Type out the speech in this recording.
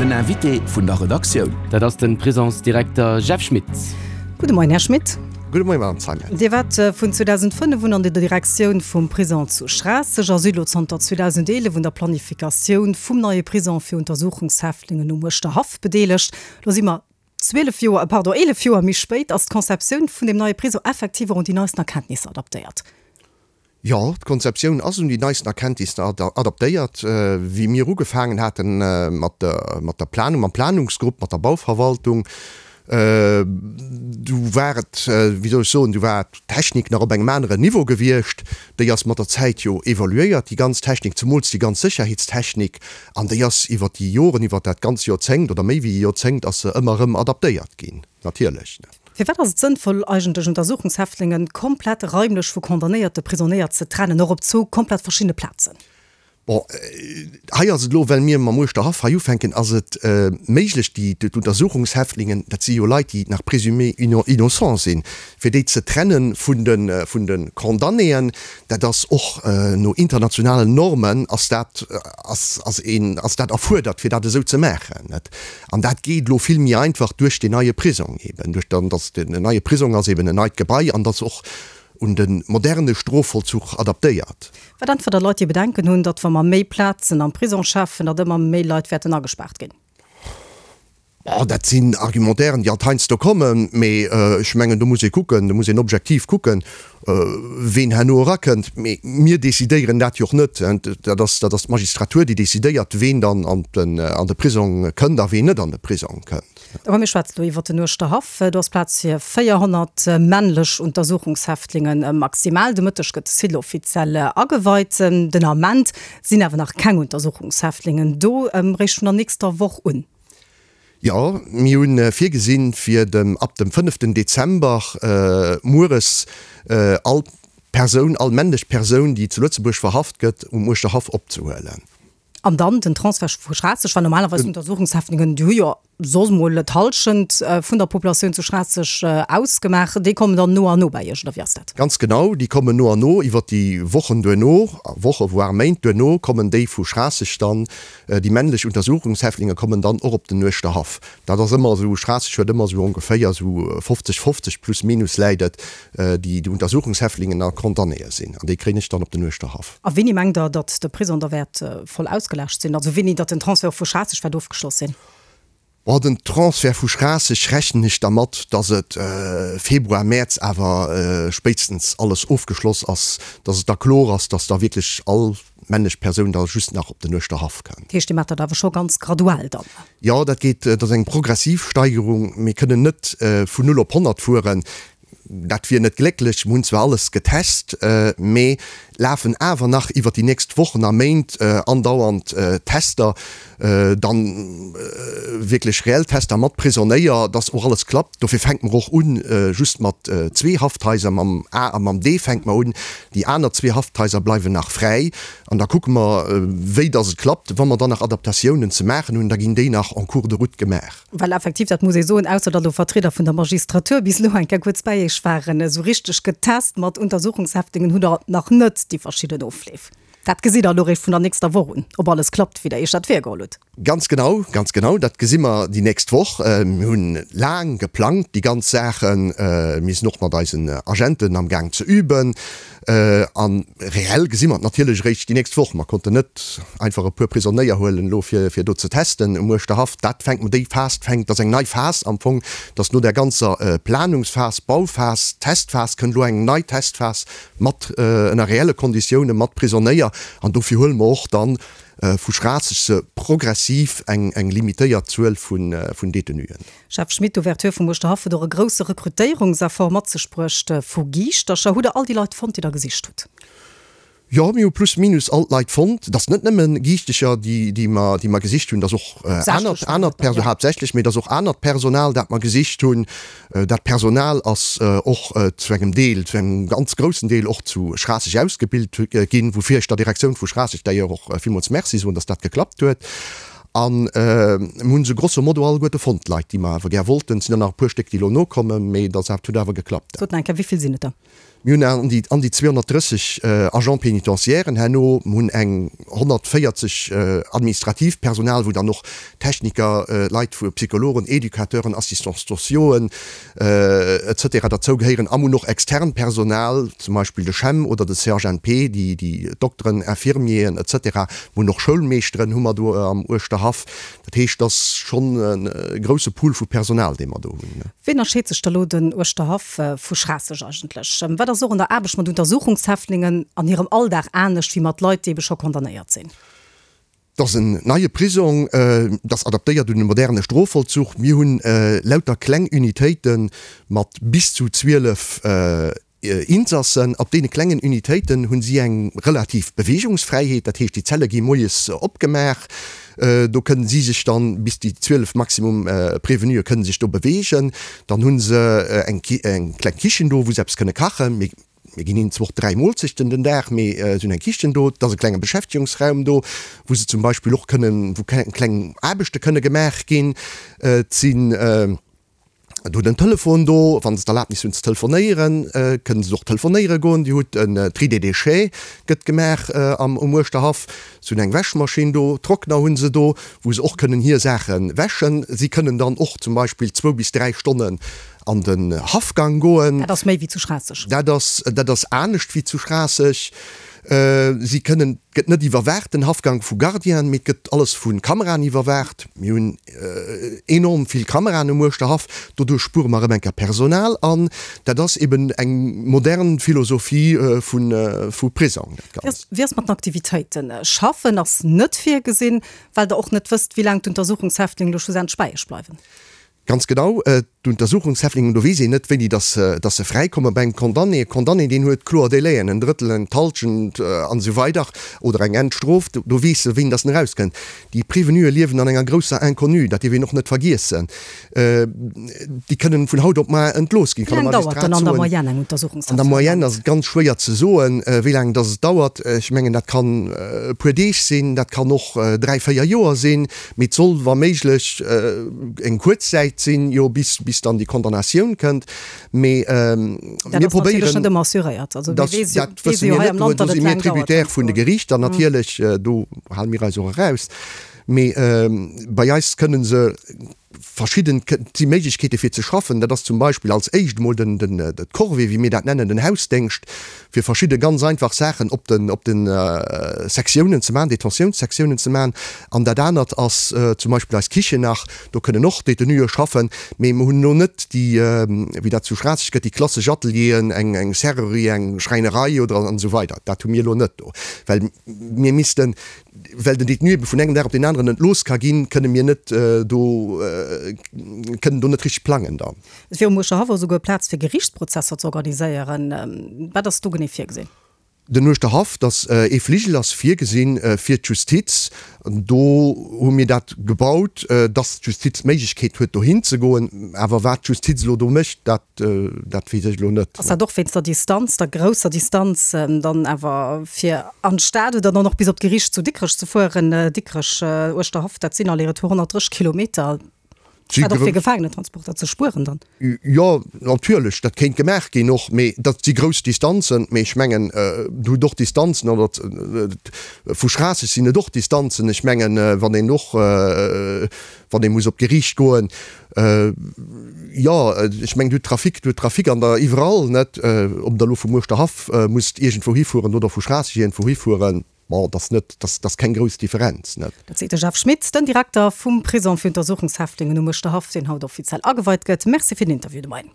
Den Invité vun der Redaktioun. Dat ass de Prisonsdirekter Jeff Schmit. Gudde Moien, Här Schmit. Gudde Moien, Madame Zeimet. Dir waart vun 2005 un an der Direktioun vum Prison zu Schraasseg a sidd elo zanter 2011 un der Planifikatioun vum neie Prison fir Untersuchungshäftlingen um Uerschterhaff bedeelegt. Lo si mer 12 Joer, pardon, 11 Joer méi spéit. Ass d'Conceptioun vun deem neie Prison effektiv och un déi neisten Erkenntnisser adaptéiert? Jo, d'Konzeptioun ass un déi neisten Erkenntnisser adaptéiert. Wéi mir ugefaangen hate mat der Planung, mam Planungsgrupp, mat der Bauverwaltung, du war et, wéi soll ech soen, du war d'Technik nach op engem aneren Niveau gewiescht. Déi ass mat der Zäit jo evoluéiert, déi ganz Technik, zemools déi ganz Sécherheetstechnik. An déi ass iwwer déi Joren, iwwer dat ganz Joerzéngt oder méi wéi e Joerzéngt ass se ëmmer erëm adaptéiert ginn, natierlech. Firwat ass et sënnvoll, eigentlech Untersuchungshäftlingen komplett raimlech vu condamnéierte Prisonéier ze trennen, och op zwou komplett verschiddene Plazen? Bon, hei ass et elo, well mir mam Uerschterhaff hei ufänken, ass et méiglech, déi d'Untersuchungshäftlingen, dat si jo Leit, déi nach présumés innocents sinn, fir déi ze trenne vun de vun de Condamnéen. Dat ass och no internationalen Normen ass dat ass ass een ass dat erfuerdert, fir dat esou ze maachen. An dat geet elo vill méi einfach duerch deen neie Prisong eben, duerch dann, dass den neie Prisong ass eben en neit Gebai an dass och un de moderne Strofvollzuch adaptéiert. Wat äntwert Der Leit, déi Bedenken hunn, datt wa mer méi Plazen am Prisong schafen, datt ëmmer méi Leit wäerten agespaart ginn? Bon, dat sinn Argumentairen, déi alt heiansdo kommen, mee ech mengen, do muss ee kucken, do muss een objektiv kucken, ween herno erakënnt. Mee mir decidéieren dat jo och net. Dat ass, dat ass d'Magistratur, déi decidéiert, ween dann an den, an de Prisong kënnt a ween net an de Prisong kënnt. Awer mir schwätzen elo iwwert den Uerschterhaff. Do ass Plaz fir 400 männlech Untersuchungshäftlingen maximal. De Mëtteg gëtt de Site offiziell ageweit. Den Ament sinn awer nach keng Untersuchungshäftlingen do, réischt vun der nächster Woch un. Jo, mir hu virgesinn, fir dem ab dem fënneften Dezember mueres all Persoun, all männlech Persoun, déi zu Lëtzebuerg verhaft gëtt, um Uerschterhaff opzehuelen. An dann den Transfert vu Schraasseg, well normalerweis Untersuchungshäftlingen, déi hu jo soss mol d'Hallschent vun der Populatioun zu Schraasseg ausgemaach, déi kommen dann no an no bei Iech, oder wéi ass dat? Ganz genau, déi kommen no an no iwwert déi Wochen duerno, Woche voire Méint duerno kommen déi vu Schraasseg dann Déi männlech Untersuchungshäftlinge kommen dann och op den Uerschterhaff. Dat ass ëmmer esou, Schraasseg huet ëmmer esou ongeféier esou 50, 50 plus minus läit et, déi Untersuchungshäftlingen a Condamnéë sinn. An déi kréien ech dann op den Uerschterhaff. A wéini mengt Der, datt de Prisong da wäert voll ausgelaascht sinn? Also wéini datt den Transfert och vu Schraasseg wäert ofgeschloss sinn? Bon, den Transfert vu Schraasseg rechnen ech dermat, dass et Februar, Mäerz awer spéitstens alles ofgeschloss ass, dass et da kloer ass, dass da wierklech all männlech Persoun da just nach op den Uerschterhaff kënnt. Dat heescht, Dir maacht dat awer scho ganz graduell dann? Jo, dat geet, dat ass eng progressiv Steigerung. Mir kënnen net vun null op 100 fueren. Dat wier net glécklech. Mir hunn zwar alles getest, mee lafen awer nach iwwer déi nächst Wochen a Méint andauernd Tester, dann wierklech reell Tester mat Prisonéier, dass och alles klappt. Dofir fänke mer och un just mat zwee Hafthaiser, mam A a mam D fänke mer un. Déi aner zwee Hafthaiser bleiwen nach fräi an da kucke mer, wéi dass et klappt. Wa mer dann nach Adaptatiounen ze maachen hunn, da ginn déi nach en cours de route gemaach. Well effektiv, dat muss ee soen, ausser datt elo Vertrieder vun der Magistratur bis elo eng Kéier kuerz bäi Iech waren, esou richteg getest mat Untersuchungshäftlingen hutt Der nach net déi verschidden Ofleef. Dat gesitt Der elo eréischt vun der nächster Woch un, ob alles klappt, wéi Der Iech dat virgeholl hutt. Ganz genau, ganz genau, dat gesi mer déi nächst Woch. Mir hunn laang geplangt, déi ganz Saachen. Mir sinn och mat eisen Agenten am Gaang ze üben. A reell gesi mer et natierlech eréischt déi nächst Woch. Mer konnten net einfach e puer Prisonéier huelen elo fir fir do ze testen um Uerschterhaff. Dat fänkt mer, déi Phas fänkt, dat ass eng nei Phas am Fong, dass no där ganzer Planungsphas, Bauphas, Testphas kënnt elo eng nei Testphas mat ënner reelle Konditioune mat Prisonéier. An dofir huele mer och dann vu Schraasseg se progressiv eng eng limitéiert Zuel vun vun Detenuen. Jeff Schmit, D'Ouverture vum Uerschterhaff huet och e grousse Rekrutéierungseffort mat sech bruecht vu Giischtercher. Hutt der all déi Leit fonnt, déi der gesicht hutt? Jo, mir hu plus minus all d'Leit fonnt. Et ass net nëmme Giischtecher, déi mer, déi mer gesicht hunn, et ass och anert, anert Perso-, haaptsächlech, mee et ass och anert Personal, dat mer gesicht hunn. Dat Personal ass och zu engem Deel, zu engem ganz groussen Deel och zu Schraasseg ausgebilt ginn, woufir ech der Direktioun vu Schraasseg d'ailleurs och villmools Merci soen, dass dat geklappt huet. An mir hunn se grosso modo alleguerte fonnt, d'Leit, déi mer awer gär wollten. Et sinn der nach e puer Stéck, déi elo nokommen, mee dat huet awer geklappt. Sot nach eng Kéier, wéi vill sinn et der? Mir hunn an déi an déi 230 Agents pénitentiairen herno, mir hunn eng 140 administratiivt Personal, wou dann och Techniker, Leit vu Psychologen, Educateuren, Assistants sociauxen, et cetera derzou gehéieren. A mir hunn och externt Personal, zum Beispill de CHEM oder de CHNP, déi déi Dokteren, Infirmieren, et cetera. Mir hunn och Schoulmeeschteren hu mer do am Uerschterhaff. Dat heescht, et ass schonn e grousse Pool vu Personal, dee mer do hunn. Wéi ënnerscheet sech da lo den Uerschterhaff vu Schraasseg eigentlech? Wat ass och an der Aarbecht mat Untersuchungshäftlingen an hirem Alldag anescht wéi mat Leit, déi ebe scho condamnéiert sinn? Et ass en neie Prisong, et ass adaptéiert un de moderne Strofvollzuch. Mir hunn lauter kleng Unitéite mat bis zu 12 Insassen. Op deene klengen Unitéiten hu si eng relativ Beweegungsfräiheet, dat heescht déi Zelle gi moies opgemaach, do kënnen si sech dann, bis déi 12 maximum Prévenuë kënnen sech do beweegen. Dann hu se eng kleng Kichen do, wou se eppes kënne kachen. Mir ginn hinnen zwar och 3 Moolzechten den Dag, mee se hunn eng Kichen do, et ass e klenge Beschäftegungsraum do, wou se zum Beispill och kënnen, wou kleng Aarbechte kënne gemaach ginn. Et sinn do den Telefon do, wa se d'Erlaabnis hunn ze telefonéieren, kënnen se och telefonéiere goen. Dir hutt en Tri des déchets gëtt gemaach am um Uerschterhaff. Se hunn eng Wäschmaschinn do, Trockner hu se do, wou se och kënnen hir Saache wäschen. Si kënnen dann och zum Beispill zwou bis 3 Stonnen an den Haffgang goen. Dat ass méi wéi zu Schraasseg. Dat ass, dat ass anescht wéi zu Schraasseg. Si kënnen, et gëtt net iwwerwaacht, den Haffgang vu Gardienen, mee et gëtt alles vu Kameraen iwwerwaacht. Mir hunn enorm vill Kameraen um Uerschterhaff, doduerch spuere mer erëm eng Kéier Personal an dat ass eben eng modern Philosophie vu, vu Prisong, dat Ganzt. Wéi ass mat den Aktivitéiten? Schaffen ass net virgesinn, well Der och net wësst, wéi laang d'Untersuchungshäftlingen elo schlussendlech bei Iech bleiwen. Ganz genau, d'Untersuchungshäftlingen, do weess een net, wéini dass se, dass se fräikommen. Bei engem Condamné, e Condamné, deen huet kloer Délaiën, en Drëttel, eng d'Halschent an esou weider oder eng Endstrof, do weess e, wéini dass en erauskënnt. Déi Prévenuë liewen an enger grousser Inconnue, dat dierf een och net vergiessen. Déi kënnen vun haut op mar entlooss ginn. Wéi laang dauert dann an der Moyenne eng Untersuchungshaft? An der Moyenne ass et ganz schwéier ze soen, wéi laang dass et dauert. Ech mengen, dat kann e puer Deeg sinn, dat kann och dräi, véier Joer sinn. Mee et soll wa méiglech eng kuerz Zäit sinn, jo, bis, bis dann déi Condamnatioun kënnt. Mee mir probéieren. Dat ass natierlech net ëmmer assuréiert. Also mir weess jo, dat wësse mir net. Do si mir tributaire vun de Geriichter natierlech. Do hale mir eis och eraus. Mee bei eis kënne se verschidden, et si Méiglechkeete fir ze schaffen. Dat ass zum Beispill als éischt emol den, den, d'Corvée, wéi mir dat nennen, den Hausdéngscht, fir verschidde ganz einfach Saachen op den, op den Sektiounen ze maachen, Detentiounssektiounen ze maachen. An dat anert ass zum Beispill eis Kichen nach, do kënnen och Détenuë schaffen, mee mer hunn elo net déi, wéi dat zu Schraasseg gëtt, déi klassesch Atelieren, eng, eng Serrurerie, eng Schräinerei oder an esou weider. Dat hu mir elo net do, well mir missten, well den Détenu ebe vun engem Dag op deen aneren entlooss ka ginn, kënne mir net do, kënnen do net richteg plangen dann. Et wier um Uerschterhaff och esouguer Plaz fir Geriichtsprozesser ze organiséieren. Wat ass do genee virgesinn? Den Uerschterhaff, dass ee Fligel ass virgesinn fir d'Justiz. Do hu mir dat gebaut, dass d'Justiz d'Méiglechkeet huet dohin ze goen. Awer wat d'Justiz elo do mécht, dat, dat weess ech elo net. Ass dat och wéinst der Distanz, der grousser Distanz dann awer fir an d'Stad oder dann och bis op d'Geriicht zu Dikrech ze fueren? Dikrech, Uerschterhaff, dat sinn aller-retour 130 Kilometer. Dat och fir Gefaangenentransporter ze spueren dann? Jo, natierlech, dat kéint gemaach ginn och, mee dat si grouss Distanzen. Mee ech mengen, do hutt och Distanzen, oder vu Schraasseg sinn et och Distanzen. Ech mengen, wann een och, wann ee muss op d'Geriicht goen, jo, ech mengen, do hutt Trafic, do hutt Trafic an der iwwerall, net? Ob Der elo vum Uerschterhaff musst iergendwou hifueren oder vu Schraasseg iergendwou hifueren. Bon, dat ass net, dat ass keng grouss Differenz, net? Dat seet de Jeff Schmit, den Direkter vum Prisong fir Untersuchungshäftlingen um Uerschterhaff, deen haut offiziell ageweit gëtt. Merci fir den Interview de Moien.